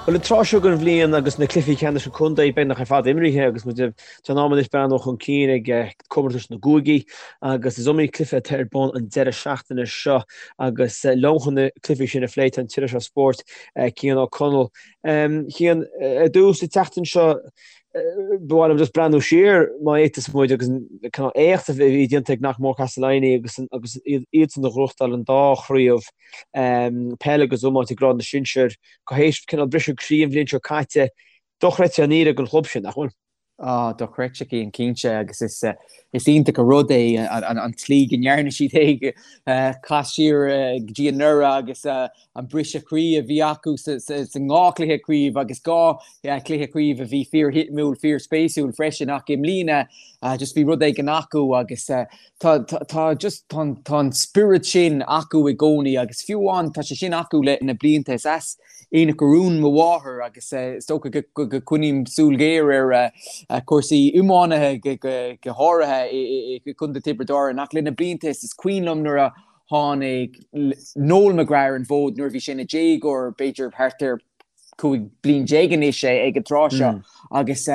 Bhuel, an tráth seo den bhliain agus na cluichí ceannais an chontae beagnach ar fad imrithe agus muid tá an am anois breathnú chun cinn ag comórtais na gcúigí agus is iomaí cluiche atá ar bun an deireadh seachtaine seo agus liom chun na cluichí sin a phlé tá an t-iriseoir spóirt Cian Ó Conaill. Cian, ar dtús an tseachtain seo ba mhaith liom just breathnú siar má fhéadfas muid agus an cineál éacht a bhí déanta ag Knockmore Castleiney agus agus iadsan a ghnóthachtáil an dá chraobh peile agus iomáint ag grád na sinsear tar éis cineál briseadh croí an bhliain seo caite, dochreidte an fhírinne don chlub sin, nach bhfuil? Á, dochreidte Cian, cinnte, agus is is iontach an rud é an tslí go ndearna siad é, cas siar go dtí anuraidh agus an briseadh croí a bhí acu sa ndá chluiche craoibhe agus dhá chluiche craoibhe a bhí fíorshuimiúil, fíorspéisiúil freisin ach i mbliana just bhí rud éigin acu agus Tá, tá just, tá, tá an spiorad sin acu i gcónaí agus fiú amháin tá sé sin acu le na blianta. Is as Aonach Urmhumhan mo mháthair agus is dócha go, go, go coinním súil ghéar ar chúrsaí iománaithe go, go, go háirithe i, i, i gContae Tiobraid Árann ach le na blianta is, is cuimhin liom nuair a tháinig Noel McGrath ar an bhfód nuair a bhí sé ina dhéagóir, b'fhéidir thart ar 15 bliain anois é ag an tráth seo agus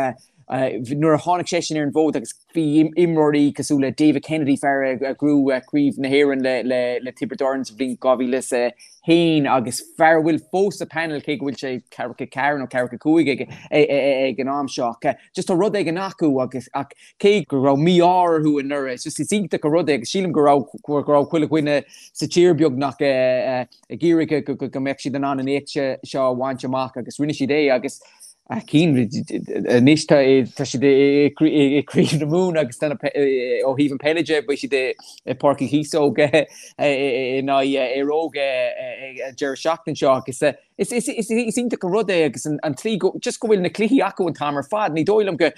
nuair a tháinig seisean ar an bhfód agus bhí imreoirí cosúil le David Kennedy, fear a ghnóthaigh Craobh na hÉireann le Tiobraid Árann sa bhliain 2001 agus fear a bhfuil fós sa panel cé go bhfuil sé 44 nó 45 ag an am seo ach just tá rud éigin acu agus ach cé go raibh mí-ádh orthu anuraidh it's just is iontach an rud é agus sílim go raibh go raibh chuile dhuine sa tír beagnach ag iarraidh go mbeadh siad in ann an éacht seo a bhaint amach agus rinne siad é agus Cian, anois tá siad i gCraobh na Mumhan agus ó thaobh an peile de beidh siad i Páirc Uí Chíosóg in aghaidh Éire Óg an deireadh seachtaine seo agus is iontach an rud é agus an tslí go just go bhfuil na cluichí acu an t-am ar fad. Ní dóigh liom go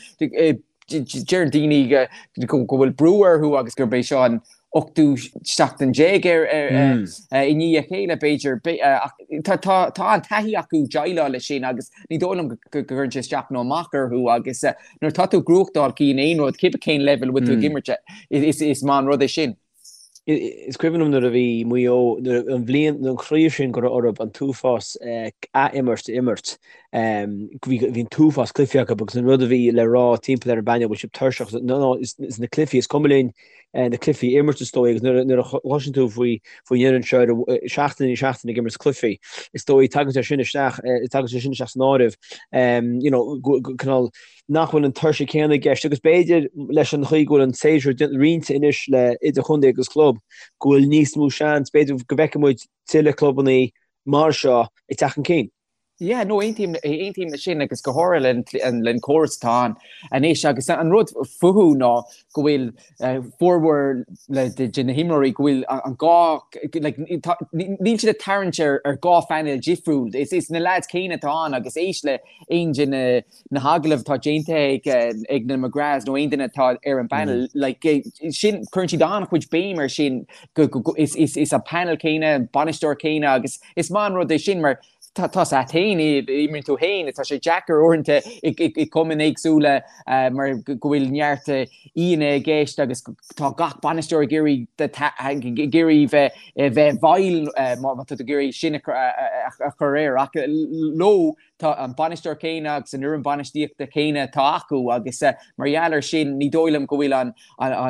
Deireann daoine go bhfuil brú orthu agus gurb é seo an ochtú seachtain déag i ndiaidh a chéile, b'fhéidir. Ach tá an taithí acu déileáil leis sin agus ní dóigh liom go gcuireann sé isteach nó amach orthu agus nuair atá tú ag gnóthachtáil Cian aon rud, cibé cén leibhéal a bhfuil tú ag imirt, is maith an rud é sin. Is cuimhin liom nuair a bhí Maigh Eo, nuair an bhliain, an chraobh sin go raibh orthu an t-uafás ath-imirt a imirt, bhí an t-uafás cluichí acu agus an rud a bhí le rá timpeall ar an bpainéal, bhfuil sibh tuirseach, no no, is na cluichí, is cuma linn na cluichí a imirt is dóigh agus nuair a chloiseann tú faoi faoin fhoireann seo ar seachtain i ndiaidh seachtaine ag imirt cluichí, is dóigh tagann sé sin isteach, tagann sé sin isteach san áireamh, you know, cineál nach bhfuil an tuirse céanna i gceist agus b'fhéidir leis an chaoi go bhfuil an séasúr roinnte anois le idirchontae agus club go bhfuil níos mó seans, b'fhéidir go bhfeicfidh muid tuilleadh clubanna mar seo ag teacht chun cinn. Yeah, no, aontaím, aontaím leis sin agus go háirithe len córas atá ann anois agus an rud fúthu ná go bhfuil formhór de na himreoirí go bhfuil an gá, like, níl siad ag tarraingt ar dhá phainéal difriúil. Is na lads céanna atá ann agus éist le aon de na na hagallaimh atá déanta ag ag na McGraths nó aon duine atá ar an bpanel, like, sin, cuireann siad an-chuid béim ar sin go, go, go, is, is, is an panel céanna, an bainisteoir céanna agus is maith an rud é sin mar tá, tá a fhios a't fhéin, imríonn tú fhéin, tá sé deacair uaireanta i, i, i cumainn éagsúla mar go bhfuil neart aíonna i gceist agus tá gach bainisteoir ag iarraidh ag iarraidh bheith bheith i bhfeighil má tá tú ag iarraidh sin a, a, a chur air ach leo Tá an bainisteoir céanna agus an fhoireann bainistíochta céanna atá acu agus mar gheall air sin ní dóigh liom go bhfuil an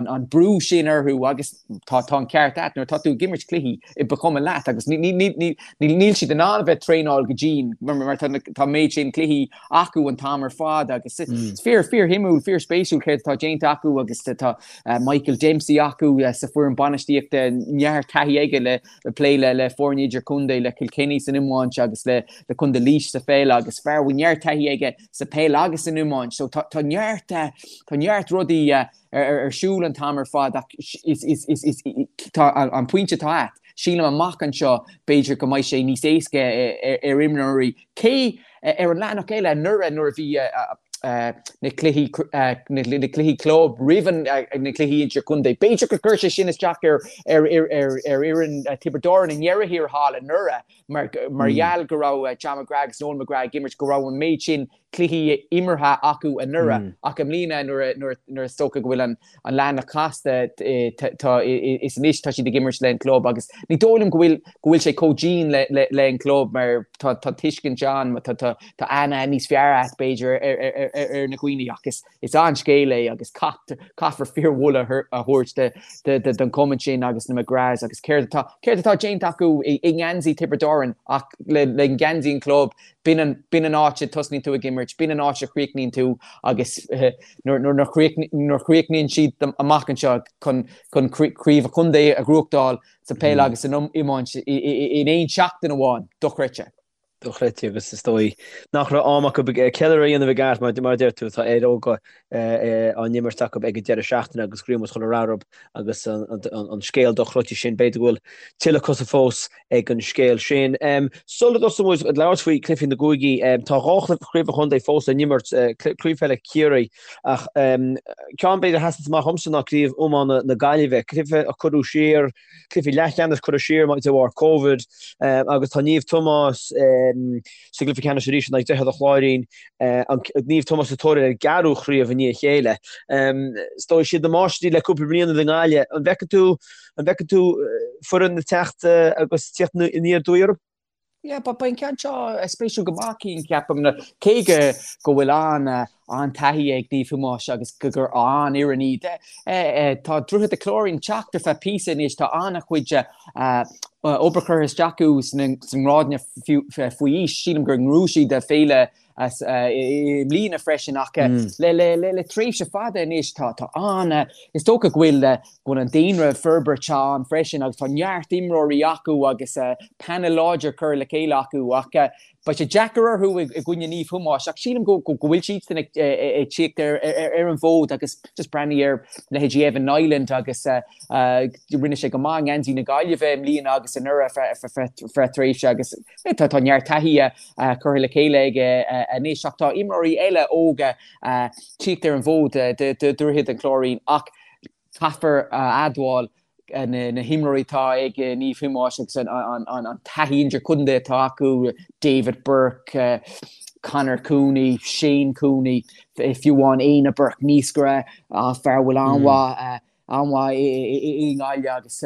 an brú sin orthu agus tá tá an ceart a't nuair atá tú ag imirt cluichí ba chuma leat agus ní ní ní níl siad in ann a bheith traenáil go dian mar mar tá tá méid sin cluichí acu an t-am ar fad agus is fíor fíor shuimiúil fíor spéisiúil céard atá déanta acu agus tá Michael Dempsey acu sa foireann bainistíochta neart taithí aige le ag plé le le foirne idirchontae, le Kilkenny san iomáint agus le le Contae Laois sa pheil agus fear a bhfuil neart taithí aige sa peil agus san iomáint. So tá tá neart tá neart rudaí ar ar siúl an t-am ar fad ach is is is is tá an pointe atá a't, sílim amach anseo b'fhéidir go mbeidh sé níos éasca ar imreoirí cé Ar an leathanach eile, anuraidh nuair a bhí na cluichí na cluichí club roimh na cluichí idirchontae, b'fhéidir gur chuir sé sin isteach ar ar ar ar fhoireann Tiobraid Árann i ndeireadh thiar thall anuraidh mar mar gheall go raibh John McGrath agus Noel McGrath ag imirt go raibh an méid sin cluichí imeartha acu anuraidh ach i mbliana nuair is dócha go bhfuil an leathanach casta tá is anois tá siad ag imirt le an club agus ní dóigh liom go bhfuil go bhfuil sé chomh dian le le le an club mar tá tá tuiscint ann tá tá tá aithne níos fearr agat b'fhéidir ar ar ar ar na dhaoine ach is is an-scéal é agus caithfear fíormholadh a thabhairt don chumann sin agus na McGraths agus céard atá céard atá déanta acu i ngeansaí Tiobraid Árann ach le le geansaí an chlub B'in an, b'in an áit a dtosnaíonn tú ag imirt, b'in an áit a chríochnaíonn tú agus nuair, nuair a chríochnaíonn siad amach anseo chun, chun craobh an chontae a ghnóthachtáil sa peil agus san iomáint in aon seachtain amháin, dochreidte. Dochreidte agus is dóigh nach raibh am acu ceiliúradh a dhéanamh i gceart mar, mar a deir tú, tá Éire Óga á n-imirt acu ag an deireadh seachtaine agus go raibh muid chun a rath orthu agus an scéal dochreidte sin, b'fhéidir go bhfuil tuilleadh cosa fós ag an scéal sin. Sula dtosóidh muid ag labhairt faoi chluichí na gcúigí, tá 2 chraobh an chontae fós le n-imirt, Craobh Peile Chiarraí ach ceann b'fhéidir a sheasann amach dhomsa ná Craobh Iomána na Gaillimhe, cluiche a cuireadh siar, cluiche leathcheannais curtha siar de bharr Covid agus tá Naomh Tomás sa gcluiche ceannais arís in aghaidh Droichead an Chláirín, Naomh Tomás sa tóir ar a gceathrú chraobh i ndiaidh a chéile. Is dóigh siad na máistrí le cúpla bliain i nGaillimh. An bhfeiceann tú An bhfeiceann tú foireann ag teacht agus tíocht aniar aduaidh orthu? Yeah, beidh an ceann seo spéisiúil go maith, Cian, ceapaim, cé go go bhfuil an an-taithí ag Naomh Thomáis agus go gur an-fhoireann iad. Tá Droichead an Chláirín ag teacht ar feadh píosa anois, tá an-chuid obair curtha isteach acu sna ngrádanna faoi aois. Sílim gur ghnóthaigh siad féile as i mbliana freisin ach le tréimhse fada anois tá tá an is dócha go bhfuil go bhfuil an daonra ag forbairt ann freisin agus tá neart imreoirí acu agus panel láidir curtha le chéile acu ach beidh sé deacair orthu i gcoinne Naomh Thomáis ach sílim go go bhfuil siadsan ag tíocht ar ar an bhfód agus just breathnaigh ar leithéidí Evan Niland agus rinne sé go maith i ngeansaí na Gaillimhe i mbliana agus anuraidh feadh tréimhse agus Tá neart taithí curtha le chéile aige anois ach tá imreoirí eile óga tíocht ar an bhfód do Dhroichead an Chláirín ach caithfear a admháil na himreoirí atá ag Naomh Thomáis agus an taithí idirchontae atá acu, David Burke, Conor Cooney, Shane Cooney, fiú amháin Éanna Burke, naoscaire, fear a bhfuil an-mhaith an-mhaith i nGaillimh agus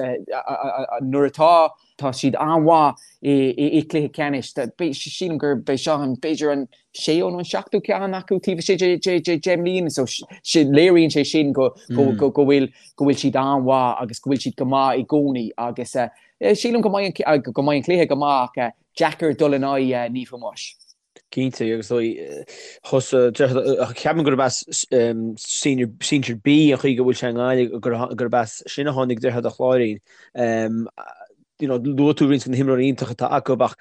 nuair atá tá siad an-mhaith i gcluiche ceannais. Sílim gur b'é seo an b'fhéidir an séú nó an seachtú ceann acu taobh istigh de 10 mbliana so léiríonn sé sin go go bhfuil go bhfuil siad an-mhaith agus go bhfuil siad go maith i gcónaí agus sílim go mbeidh go mbeidh an cluiche go maith ach deacair dul in aghaidh Naomh Thomáis. Cinnte, agus thusa, ceapaim gurb as Senior, Senior B an chaoi go bhfuil sé i nGaillimh, gurb as sin a tháinig Droichead an Chláirín. You know, luaigh tú roinnt de na himreoirí iontacha atá acu ach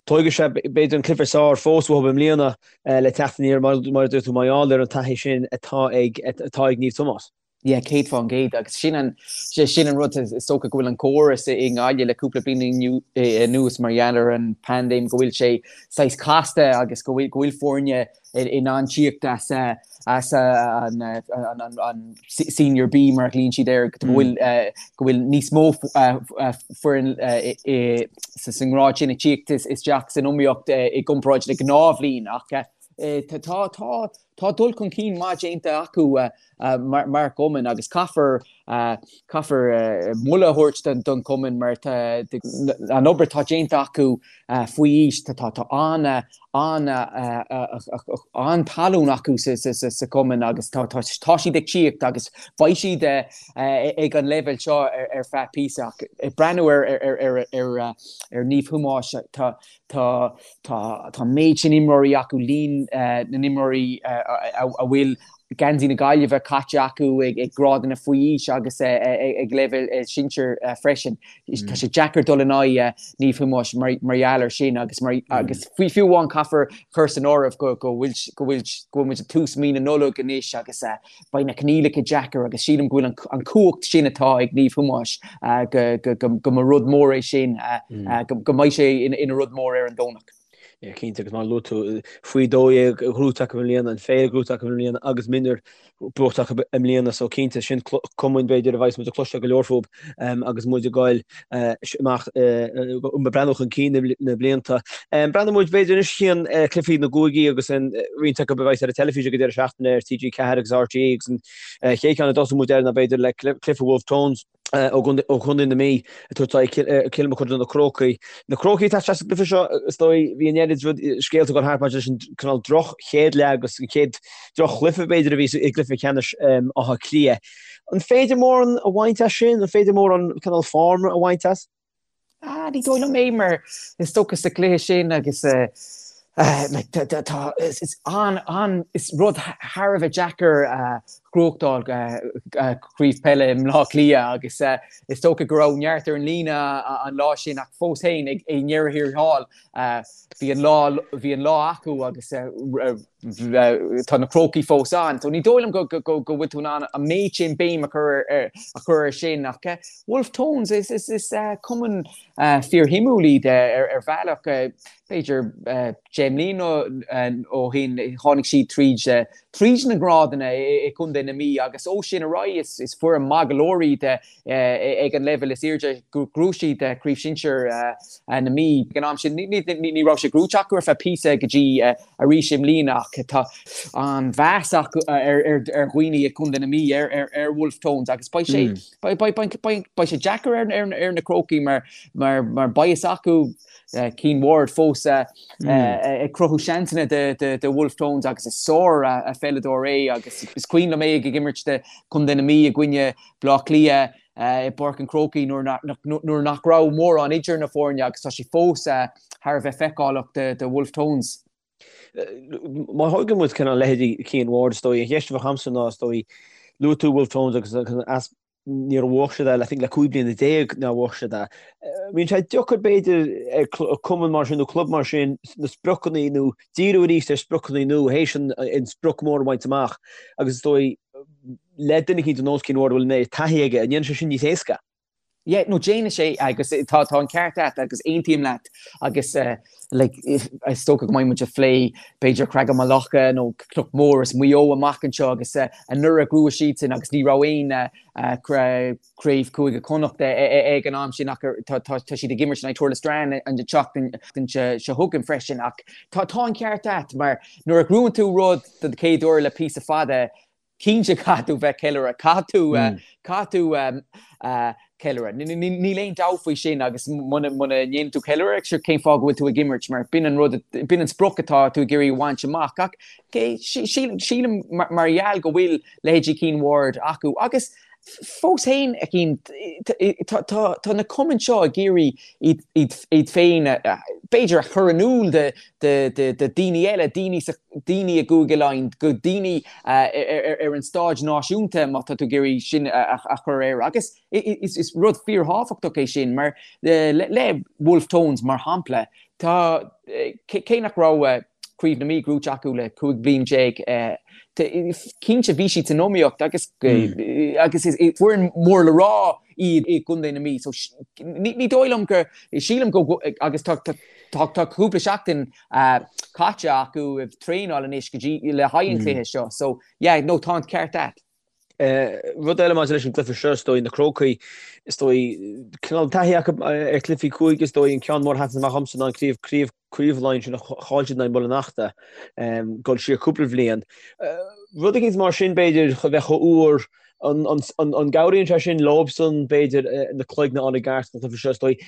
tógfaidh sé b'fhéidir an cluiche is fearr fós uathu i mbliana le teacht aniar mar a dúirt tú mar gheall ar an taithí sin atá ag atá ag Naomh Tomás. Yeah, 100% agus sin an, sin an rud, is dócha go bhfuil an córas i nGaillimh le cúpla bliain anuas mar gheall ar an paindéim go bhfuil sé saghas casta agus go bhfuil, go bhfuil foirne in ann tíocht as, as an, an, an, an Senior B mar a ghlaonn siad air, go bhfuil, go bhfuil níos mó foireann sa, sa ngrád sin ag tíocht isteach san iomaíocht i gcomparáid le gnáthbhliain ach tá, tá, tá dul chun cinn maith déanta acu mar chumann agus caithfear caithfear moladh a thabhairt don chumann mar an obair atá déanta acu faoi aois tá tá an an an-tallann acu sa chumann agus tá tá siad ag tíocht agus beidh siad ag an leibhéal seo ar feadh píosa ach ag breathnú ar ar ar ar ar Naomh Thomáis tá Tá tá tá an méid sin imreoirí acu, líon na n-imreoirí a bhfuil geansaí na Gaillimhe caite acu ag grádanna faoi aois agus ag leibhéal sinsir freisin. Tá sé deacair dul in aghaidh Naomh Thomáis mar gheall air sin agus mar agus fiú amháin caithfear cur san áireamh go go bhfuil go bhfuil go bhfuil muid ag tús mí na Nollag anois agus beidh na coinníollacha deacair agus sílim go bhfuil an cumhacht sin atá ag Naomh Thomáis go mba rud mór é sin, go mbeidh sé ina rud mór ar an Domhnach. Yeah, cinnte, agus mar a luaigh tú, faoi 12 gnóite acu i mbliana, an Féile gnóite acu i mbliana agus mionúir buaite acu i mbliana, so cinnte, sin cumainn b'fhéidir a bheas muid ag cloisteáil go leor fúthu agus muid ag goil amach ag breathnú chun cinn na blianta. Breathnóidh muid b'fhéidir anois chuig cluichí na gcúigí agus an roinnt acu a bheas ar an teilifís ag an deireadh seachtaine ar TG4 agus RTÉ agus an chéad cheann a dtosóidh muid air ná b'fhéidir le cluiche Wolfe Tones. ó Chontae na Mí ag tabhairt aghaidh Cill Mochuda na Crócaigh. Na Crócaigh atá isteach sa gcluiche seo, is dóigh, bhí an oiread rud, scéalta ag dul thart maidir leis an cineál droch chéad leath agus an chéad droch chluiche b'fhéidir a bhí i gcluiche ceannais Átha Cliath. An féidir mórán a bhaint as sin? An féidir mórán cineál form a bhaint as? Ah, ní dóigh liom é mar is dócha sa gcluiche sin agus like tá is an an is rud thar a bheith deacair a ghnóthachtáil craobh peile i mBleá Cliath agus is dócha go raibh neart ar an líne an lá sin ach fós féin ag i ndeireadh thiar thall bhí an lá bhí an lá acu agus tá na Crócaigh fós ann. So ní dóigh liom go bhfuil tú in ann an méid sin béim a chur ar a chur ar sin ach Wolfe Tones is is is cumann fíorshuimiúil iad ar ar bhealach b'fhéidir 10 mbliana ó shin tháinig siad tríd tríd na grádanna i gContae na Mí agus ó sin ar aghaidh is is foireann maith go leor iad ag an leibhéal is airde. Ghnóthaigh siad Craobh Shinsir na Mí ag an am sin. Ní raibh sé gnóite acu ar feadh píosa go dtí arís i mbliana ach tá an-mheas acu ar dhaoine i gContae na Mí ar Wolfe Tones agus beidh sé beidh sé deacair ar na Crócaigh mar mar beidh fhios acu Cian Ward fós ag cruthú seansanna do Wolfe Tones agus is sár pheileadóir é agus is cuimhin liom é ag imirt do Chontae na Mí i gcoinne Bleá Cliath i bPáirc an Chrócaigh nuair nach raibh mórán idir na foirne agus tá sé fós thar a bheith feiceálach do Wolfe Tones. Má thógann muid cineál leithéidí Cian Ward is dóigh, an cheist a bheadh agamsa ná is dóigh, luaigh tú Wolfe Tones agus as níor bhuaigh siad é, I think le 15 bliana nár bhuaigh siad é. Bíonn sé deacair b'fhéidir ar cumann mar sin nó club mar sin na spriocanna nó díriú arís ar spriocanna nua théis an sprioc mór a bhaint amach agus is dóigh le duine eicínt ar nós Cian Ward a bhfuil an oiread taithí aige, an ndéanann sé sin níos éasca? Yeah, no déanann sé agus tá tá an ceart agat agus aontaím leat agus like is dócha go mbeidh muid ag plé b'fhéidir Creagán Locha nó Cnoc Mór is Maigh Eo amach anseo agus anuraidh ghnóthaigh siadsan agus ní raibh aon craobh Cúige Chonnacht ag an am sin ach tá siad ag imirt in aghaidh Tourlestrane an tseachtain seo chugainn freisin ach tá tá an ceart agat mar nuair a ghnóthaíonn tú rud don chéad uair le píosa fada Cinnte caithfidh tú bheith ceiliúradh, caithfidh tú, caithfidh tú ceiliúradh. Níl aon dabht faoi sin agus muna ndéanann tú ceiliúradh, sure cén fáth go bhfuil tú ag imirt mar b'in an rud, b'in an sprioc atá tú ag iarraidh a bhaint amach. Ach sílim mar gheall go bhfuil leithéidí Cian Ward acu agus fós féin, a Chian, tá na cumainn seo ag iarraidh iad féin, b'fhéidir, a chur in iúl do dhaoine eile, daoine sa, daoine i gCúige Laighean, go daoine ar an stáid náisiúnta, má tá tú ag iarraidh sin a chur air. Agus is rud fíorthábhachtach é sin, mar le Wolfe Tones, mar shampla, tá, cé nach raibh Craobh na Mí gnóite acu le 15 bliain, cinnte bhí siad san iomaíocht agus agus is foireann mór le rá iad i gContae na Mí. So ní dóigh liom go, sílim go, agus tá tá cúpla seachtain caite acu ag traenáil anois go dtí le haghaidh an chluiche seo. So yeah, no tá an ceart agat. Rud eile maidir leis an gcluiche seo, is dóigh, na Crócaigh, is dóigh, cineál taithí acu ar chluichí cúige, is dóigh, an ceann mór a sheasann amach dhomsa ná an craobh, craobh, craobh Laighean sin a chaill siad in aghaidh Mhuileann Fheachta, dul siar cúpla bhliain. Rud eicínt mar sin, b'fhéidir, a bheith chomh úr, an, an, an, an gcabhraíonn sé sin leobsan, b'fhéidir, na cloigne a fháil i gceart sa chluiche seo, is dóigh,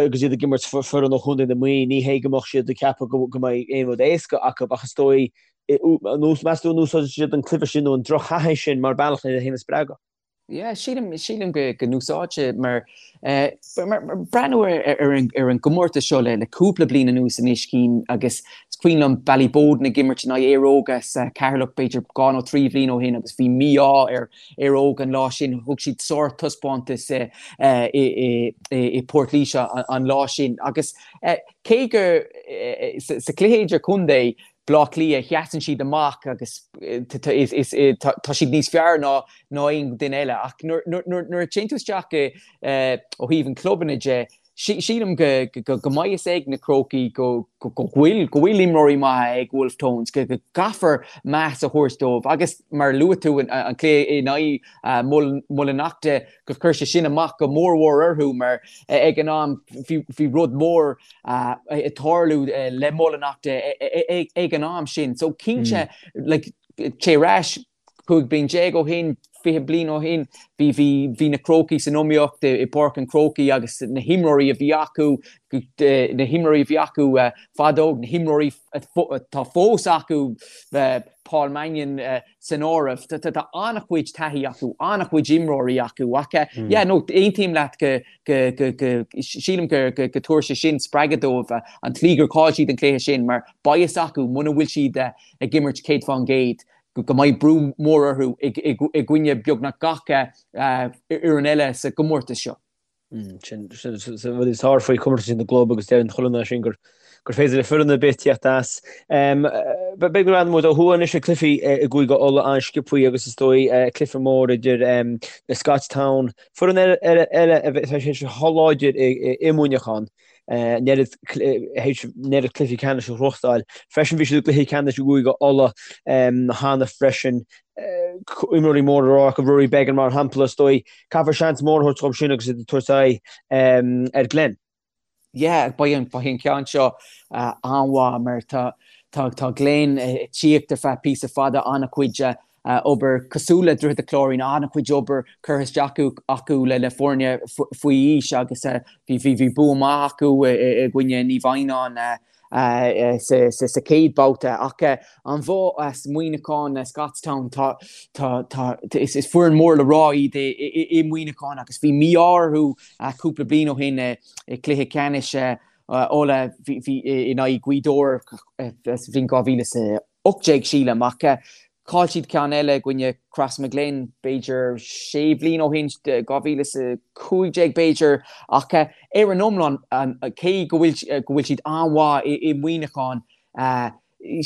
agus iad ag imirt foireann ó Chontae na Mí, ní hé go mbeadh siad ag ceapadh go, go mbeidh aon rud éasca acu, ach is dóigh, Meas tú an úsáidfidh siad an cluiche sin nó an drochthaithí sin mar bealach lena féin a spreagadh? Yeah, sílim, sílim go, go n-úsáidfidh mar, eh, mar, mar breathnú ar, ar, an, ar an gcomórtas seo le, le cúpla bliain anuas anois Cian agus is cuimhin liom Ballyboden ag imirt in aghaidh Éire Óga sa Cheatharlach b'fhéidir dhá nó trí bhliain ó shin agus bhí mí-ádh ar Éire Óga an lá sin, thug siad sártaispeántas i, i, i, i, i Port Laoise an, an lá sin agus eh, cé go eh, sa, sa chluiche idir-chontae Bleá Cliath, sheasann siad amach agus tá siad níos fearr ná aon duine eile. Ach nuair a téann tú isteach ó thaobh an clubanna de, Sílim go mbeidh fhios ag na Crócaigh go bhfuil go bhfuil imreoirí maithe ag Wolfe Tones, go gcaithfear meas a thabhairt dóibh agus mar a luaigh tú an cluiche in aghaidh Mullinalaghta gur chuir sé sin amach go mór mhór orthu mar ag an am bhí rud mór ag tarlú le Mullinalaghta ag an am sin. So cinnte like téigh ar ais 15 bliain ó shin, 20 bliain ó shin, bhí, bhí, bhí na Crócaigh san iomaíocht i bPáirc an Chrócaigh agus na himreoirí a bhí acu, na himreoirí a bhí acu fadó, na himreoirí atá fós acu, Paul Mannion san áireamh, tá an-chuid taithí acu, an-chuid imreoirí acu ach yeah, no, aontaím leat go, go, go, go, sílim go, go, go dtabharfaidh sé sin spreagadh dóibh an tslí gur chaill siad an cluiche sin mar beidh fhios acu muna bhfuil siad ag imirt 100% go mbeidh brú mór orthu i gcoinne beagnach gach fhoireann eile sa gcomórtas seo. Sin rud is fearr faoi chomórtas na gclub agus deireann chuile dhuine sin gur gur féidir le foireann ar bith tíocht as. Beidh go raibh muid ó thuaidh anois ag cluichí i gCúige Uladh an-sciobthaí agus is dóigh cluiche mór idir na Scotstown, foireann eile a bheidh sé chomh láidir i Muineachán. an oiread cluichí ceannais a ghnóthachtáil. Freisin bhí siad i gcluiche ceannais i gCúige Uladh cheana freisin. Imreoirí mór le rá acu, Rory Beggan mar shampla, is dóigh. Caithfear seans mór a thabhairt dóibh sin agus iad ag tabhairt aghaidh ar Glen. Yeah, beidh an beidh an ceann seo an-mhaith mar tá tá tá Glen ag tíocht ar feadh píosa fada an-chuid obair cosúil le Droichead an Chláirín, an-chuid obair curtha isteach acu le foirne faoi aois agus bhí bua maith acu i gcoinne Naomh Adhamhnáin sa chéad babhta. Ach an bhua as Muineachán, Scotstown, tá, tá, is foireann mór le rá iad i Muineachán agus bhí mí-ádh orthu cúpla bliain ó shin i gcluiche ceannais Uladh in aghaidh Ghaoth Dobhair sa bhliain 2018 sílim ach Chaill siad ceann eile i gcoinne Crossmaglen b'fhéidir sé bhliain ó shin, 2015 b'fhéidir, ach ar an iomlán, cé go bhfuil go bhfuil siad an-mhaith i Muineachán,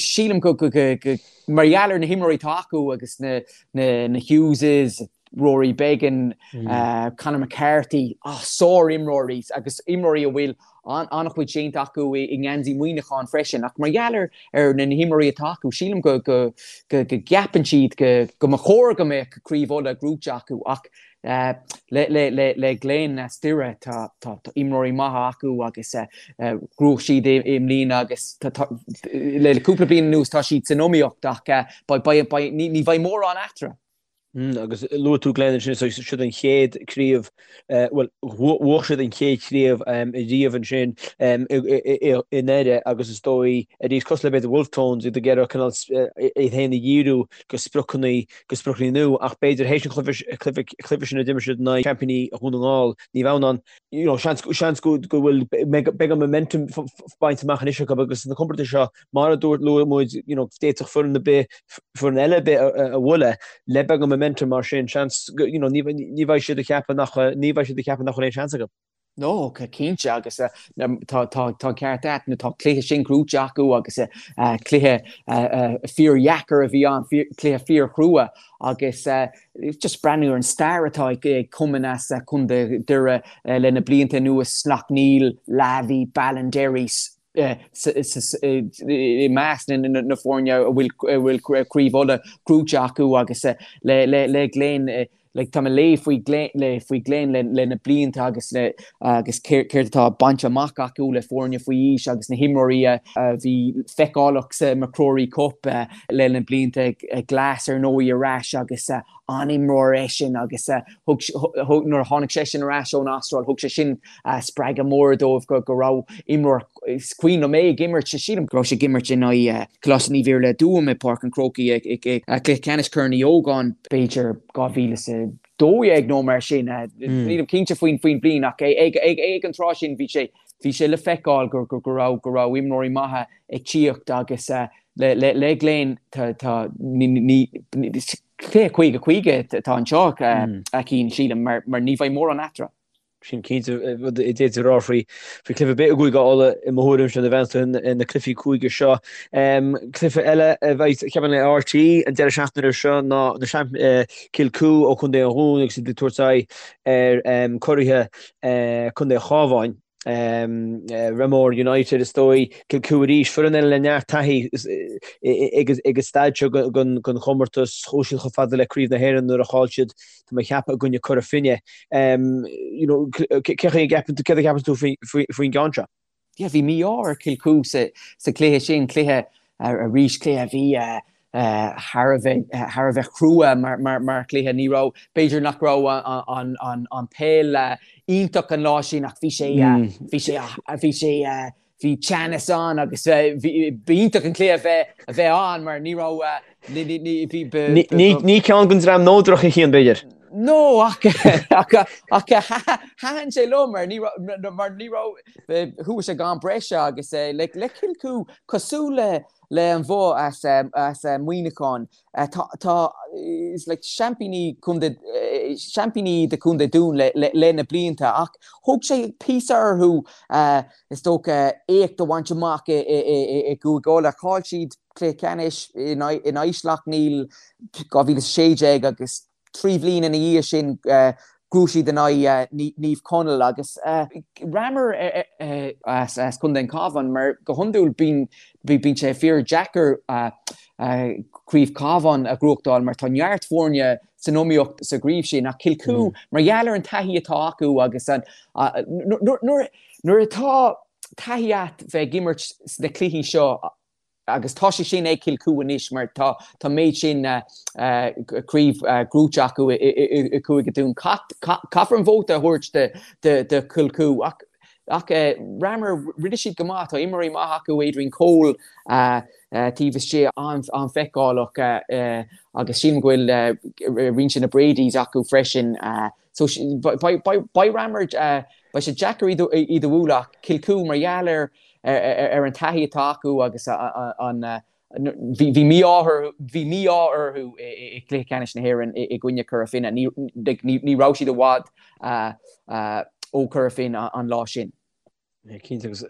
sílim go mar gheall ar na himreoirí atá acu agus na Hugheses, Rory Beggan, Conor McCarthy, sár-imreoirí agus imreoirí a bhfuil an-chuid déanta acu i ngeansaí Mhuineacháin freisin. Ach mar gheall ar na himreoirí atá acu, sílim go gceapann siad go mba chóir go mbeadh Craobh Uladh gnóite acu. Ach le Glen as Doire, tá imreoirí maithe acu agus ghnóthaigh siad i mbliana agus le cúpla bliain anuas tá siad san iomaíocht ach ní bheidh mórán eatarthu. Agus luaigh tú Glen ansin, so siad an chéad chraobh, bhuel, bhuaigh siad an chéad chraobh riamh ansin i nDoire agus is dóigh, arís, cosúil le b'fhéidir Wolfe Tones, iad ag iarraidh cineál iad féin a dhíriú go spriocanna, go spriocanna nua ach b'fhéidir théis an chluiche sin a d'imir siad in aghaidh seaimpíní Dhún na nGall, Naomh Adhamhnáin, you know, seans, seans go bhfuil beagán momentum bainte amach anois acu agus sna comórtais seo, mar a dúirt, luaigh muid, you know, d'fhéadfadh foireann ar bith, foireann eile ar bith a bhualadh le beagán momentum mar sin, seans, you know, ní bheidh siad ag ceapadh nach, ní bheidh siad ag ceapadh nach bhfuil aon seans acu. No, cinnte, agus tá an ceart agat, nó tá cluiche sin gnóite acu agus cluiche fíordheacair a bhí ann, cluiche fíorchrua agus just breathnú ar an stair atá ag cumainn as Contae Dhoire le na blianta anuas, Slaughtneil, Lavey, Ballinderry, i measc na foirne a bhfuil Craobh Uladh gnóite acu agus le Glen like tá mé ag léamh faoi Glen le faoi Glen le le na blianta agus le agus céard atá bainte amach acu le foirne faoi aois agus na himreoirí a bhí feiceálach sa MacRory Cup le na blianta Glass ar ndóigh ar ais agus an-imreoir eisean agus thug nuair a tháinig seisean ar ais ón Astráil thug sé sin spreagadh mór dóibh go raibh imreoir, is cuimhin liom é ag imirt, sílim go raibh sé ag imirt in aghaidh Coláiste Naomh Iarlaith i dTuaim i bPáirc an Chrócaigh ag cluiche ceannais Chorn Uí Ógáin, b'fhéidir 2012 nó mar sin, nílim cinnte faoin bhliain ach ag an tráth sin bhí sé bhí sé le feiceáil go raibh go raibh imreoirí maithe ag tíocht agus le Glen tá ní cluiche 50-50 atá anseo a Chian sílim mar ní bheidh mórán eatarthu. Sin cinnte rud a d'fhéadfaí a rá faoi chluiche ar bith i gCúige Uladh i mo thuairimse nuair a bheanns tú ar na cluichí cúige seo. Cluiche eile a bheidh ceapaim le RTÉ an deireadh seachtaine seo ná na Kilcoo ó Chontae an Dhúin agus iad ag tabhairt aghaidh ar curaithe Contae an Chabháin. Ramor United is dóigh, Kilcoo arís, foireann eile le neart taithí ag an staid seo den chomórtas, chuaigh siad chomh fada le Craobh na hÉireann nuair a chaill siad, tá mé ag ceapadh, i gcoinne Cora Finne. You know, cé chaoi a gceapann tú, céard a cheapann tú faoin gceann seo? Yeah, bhí mí-ádh ar Kilcoo sa chluiche sin, cluiche arís, cluiche a bhí thar a bheith thar a bheith crua mar chluiche. Ní raibh, b'fhéidir nach raibh an peil iontach an lá sin ach bhí sé bhí sé bhí sé bhí teannas ann agus b'iontach an cluiche a bheith a bheith ann mar ní raibh Ní ceann den dream neodrach a Chian, b'fhéidir. No ach ach ach thaitin sé liom mar ní mar ní raibh chuaigh sé go ham breise agus le le Kilcoo cosúil le Le an Bhoth as as Muineachán. Tá tá is like seaimpíní contae seaimpíní de Chontae Dún le le le na blianta ach thóg sé píosa orthu is dócha éacht a bhaint amach i i i i gCúige Uladh. Chaill siad cluiche ceannais in aghaidh in aghaidh Sleacht Néill 2016 agus 3 bhliain ina dhiaidh sin ghnóthaigh siad in aghaidh Naomh Conaill agus Ramor as Contae an Chabháin mar go hiondúil bíonn bíonn sé fíor deacair Craobh Cabháin a ghnóthachtáil mar tá neart foirne san iomaíocht sa gcraobh sin ach Kilcoo mar gheall ar an taithí atá acu agus an nuair nuair atá taithí a't bheith ag imirt sna cluichí seo Agus tá sé sin ag Kilcoo anois mar tá an méid sin craobh gnóite acu i Cúige Dún. Caithfear an vóta a thabhairt do Kilcoo ach ach Ramor, rinne siad go maith. Tá imreoirí maith acu, Adrian Cole taobh istigh an-fheiceálach agus sílim go bhfuil roinnt de na Bradys acu freisin. So beidh Ramor, beidh sé deacair iad a bhualadh ach Kilcoo mar gheall ar ar an taithí atá acu agus an bhí mí-ádh bhí mí-ádh orthu i gcluiche ceannais na hÉireann i gcoinne Cora Finne. Ní ní raibh siad i bhfad ó Chora Finne an lá sin. Cinnte agus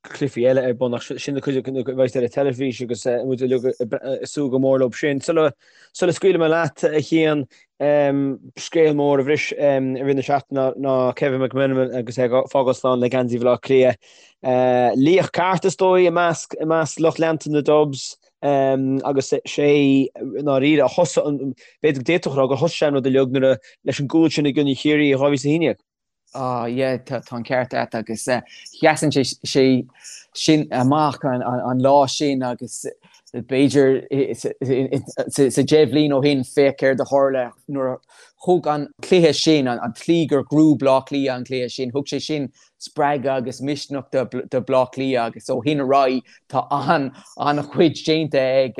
cluichí eile ar bun ach sin na cuid a bheidh ar an teilifís agus muid uilig ag súil go mór leo sin. Sula scaoilfidh mé leat a Chian, Scéal mór a bhris i rith na seachtaine ná Kevin McMenamin agus é ag fágáil slán le geansaí Bhaile Átha Cliath. Laoch ceart is dóigh i measc i measc lucht leanta na Dubs agus sé i ndáiríre a thosaigh an, b'fhéidir go d'fhéadfadh a rá gur thosaigh sé an rud uilig nuair a leis an gcúl sin i gcoinne Chiarraí i 2011. Ah yeah, tá an ceart agat agus sheasann sé sin amach an lá sin agus b'fhéidir sa 10 bhliain ó shin féach céard a tharla nuair a thug an cluiche sin, an tslí gur ghnóthaigh Bleá Cliath an cluiche sin, thug sé sin spreagadh agus misneach do Bhleá Cliath agus ó shin ar aghaidh tá an-chuid déanta ag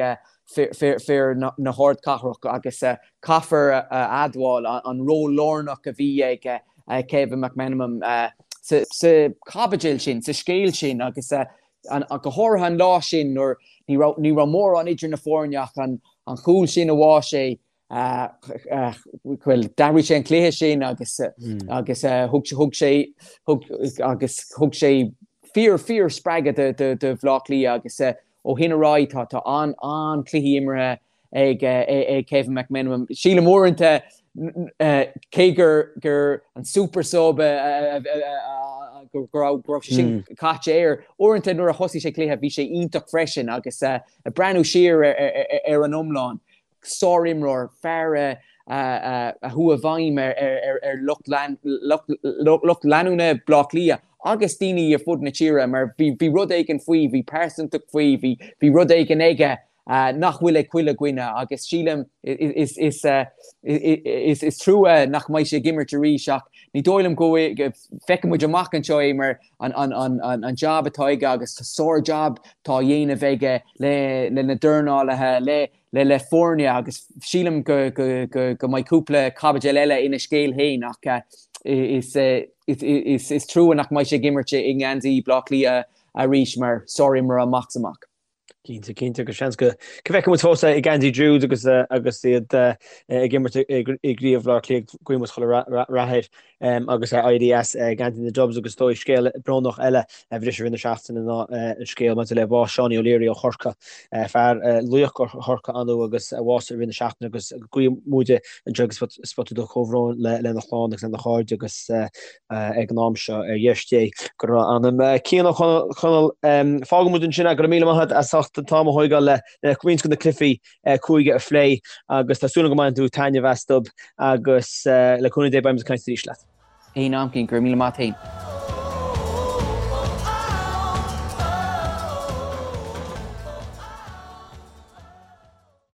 fir na hardchathrach agus caithfear a admháil an ról lárnach a bhí ag Kevin McMenamin sa chaibidil sin, sa scéal sin agus go háirithe an lá sin nuair ní raibh ní raibh mórán idir na foirne ach an chúl sin a bháigh sé bhuel d'athraigh sé an cluiche sin agus agus thug thug sé thug agus thug sé fíor fíor spreagadh do do Bhleá Cliath agus Ó shin ar aghaidh tá tá an-chluichí imeartha ag ag Kevin McMenamin. Sílim uaireanta cé gur gur an super sub go raibh go raibh sé sin caite air, uaireanta nuair a thosaigh sé cluiche bhí sé iontach freisin agus ag breathnú siar ar an iomlán sárimreoir, fear a chuaigh i bhfeidhm ar lucht leanúna Bhaile Átha Cliath agus daoine ar fud na tíre mar bhí rud éigin faoi, bhí pearsantacht faoi, bhí rud éigin aige nach bhfuil ag chuile dhuine agus sílim is trua nach mbeidh sé ag imirt arís ach ní dóigh liom go bhfeicfidh muid amach anseo é mar an jab atá aige agus sár-jab atá á dhéanamh aige le na dornálaithe, le le le foirne agus sílim go go go go mbeidh cúpla caibidil eile ina scéal féin ach is is is trua nach mbeidh sé ag imirt i ngeansaí Bhaile Átha Cliath arís mar sárimreoir amach is amach. Cinnte, cinnte, agus seans go bhfeicfidh muid fós ag Andy Jude agus agus iad ag imirt i gCraobh Bhaile Átha Cliath, guíonn muid chuile rath air agus éirí as ag Andy na Dubs agus is dóigh scéal brónach eile a bhris i rith na seachtaine ná an scéal maidir le bás Seánie O'Leary ó Chorcaigh, fear laoch Chorca ann agus a bhásaigh i rith na seachtaine agus guíonn muide anseo ag Spota Dubh comhbhrón lena chlann agus lena chairde agus ag an am seo, ar dheis Dé go raibh a anam. Cian Ó Conaill, fágfaidh muid ansin é, go raibh míle maith agat as ucht an t-am a thóigeáil le roinnt de na cluichí cúige a phlé agus tá súil agam go mbaineann tú taitneamh astu agus le cúnamh Dé beidh muid ag caint arís leat. Aon am, Cian, go raibh míle maith agat féin.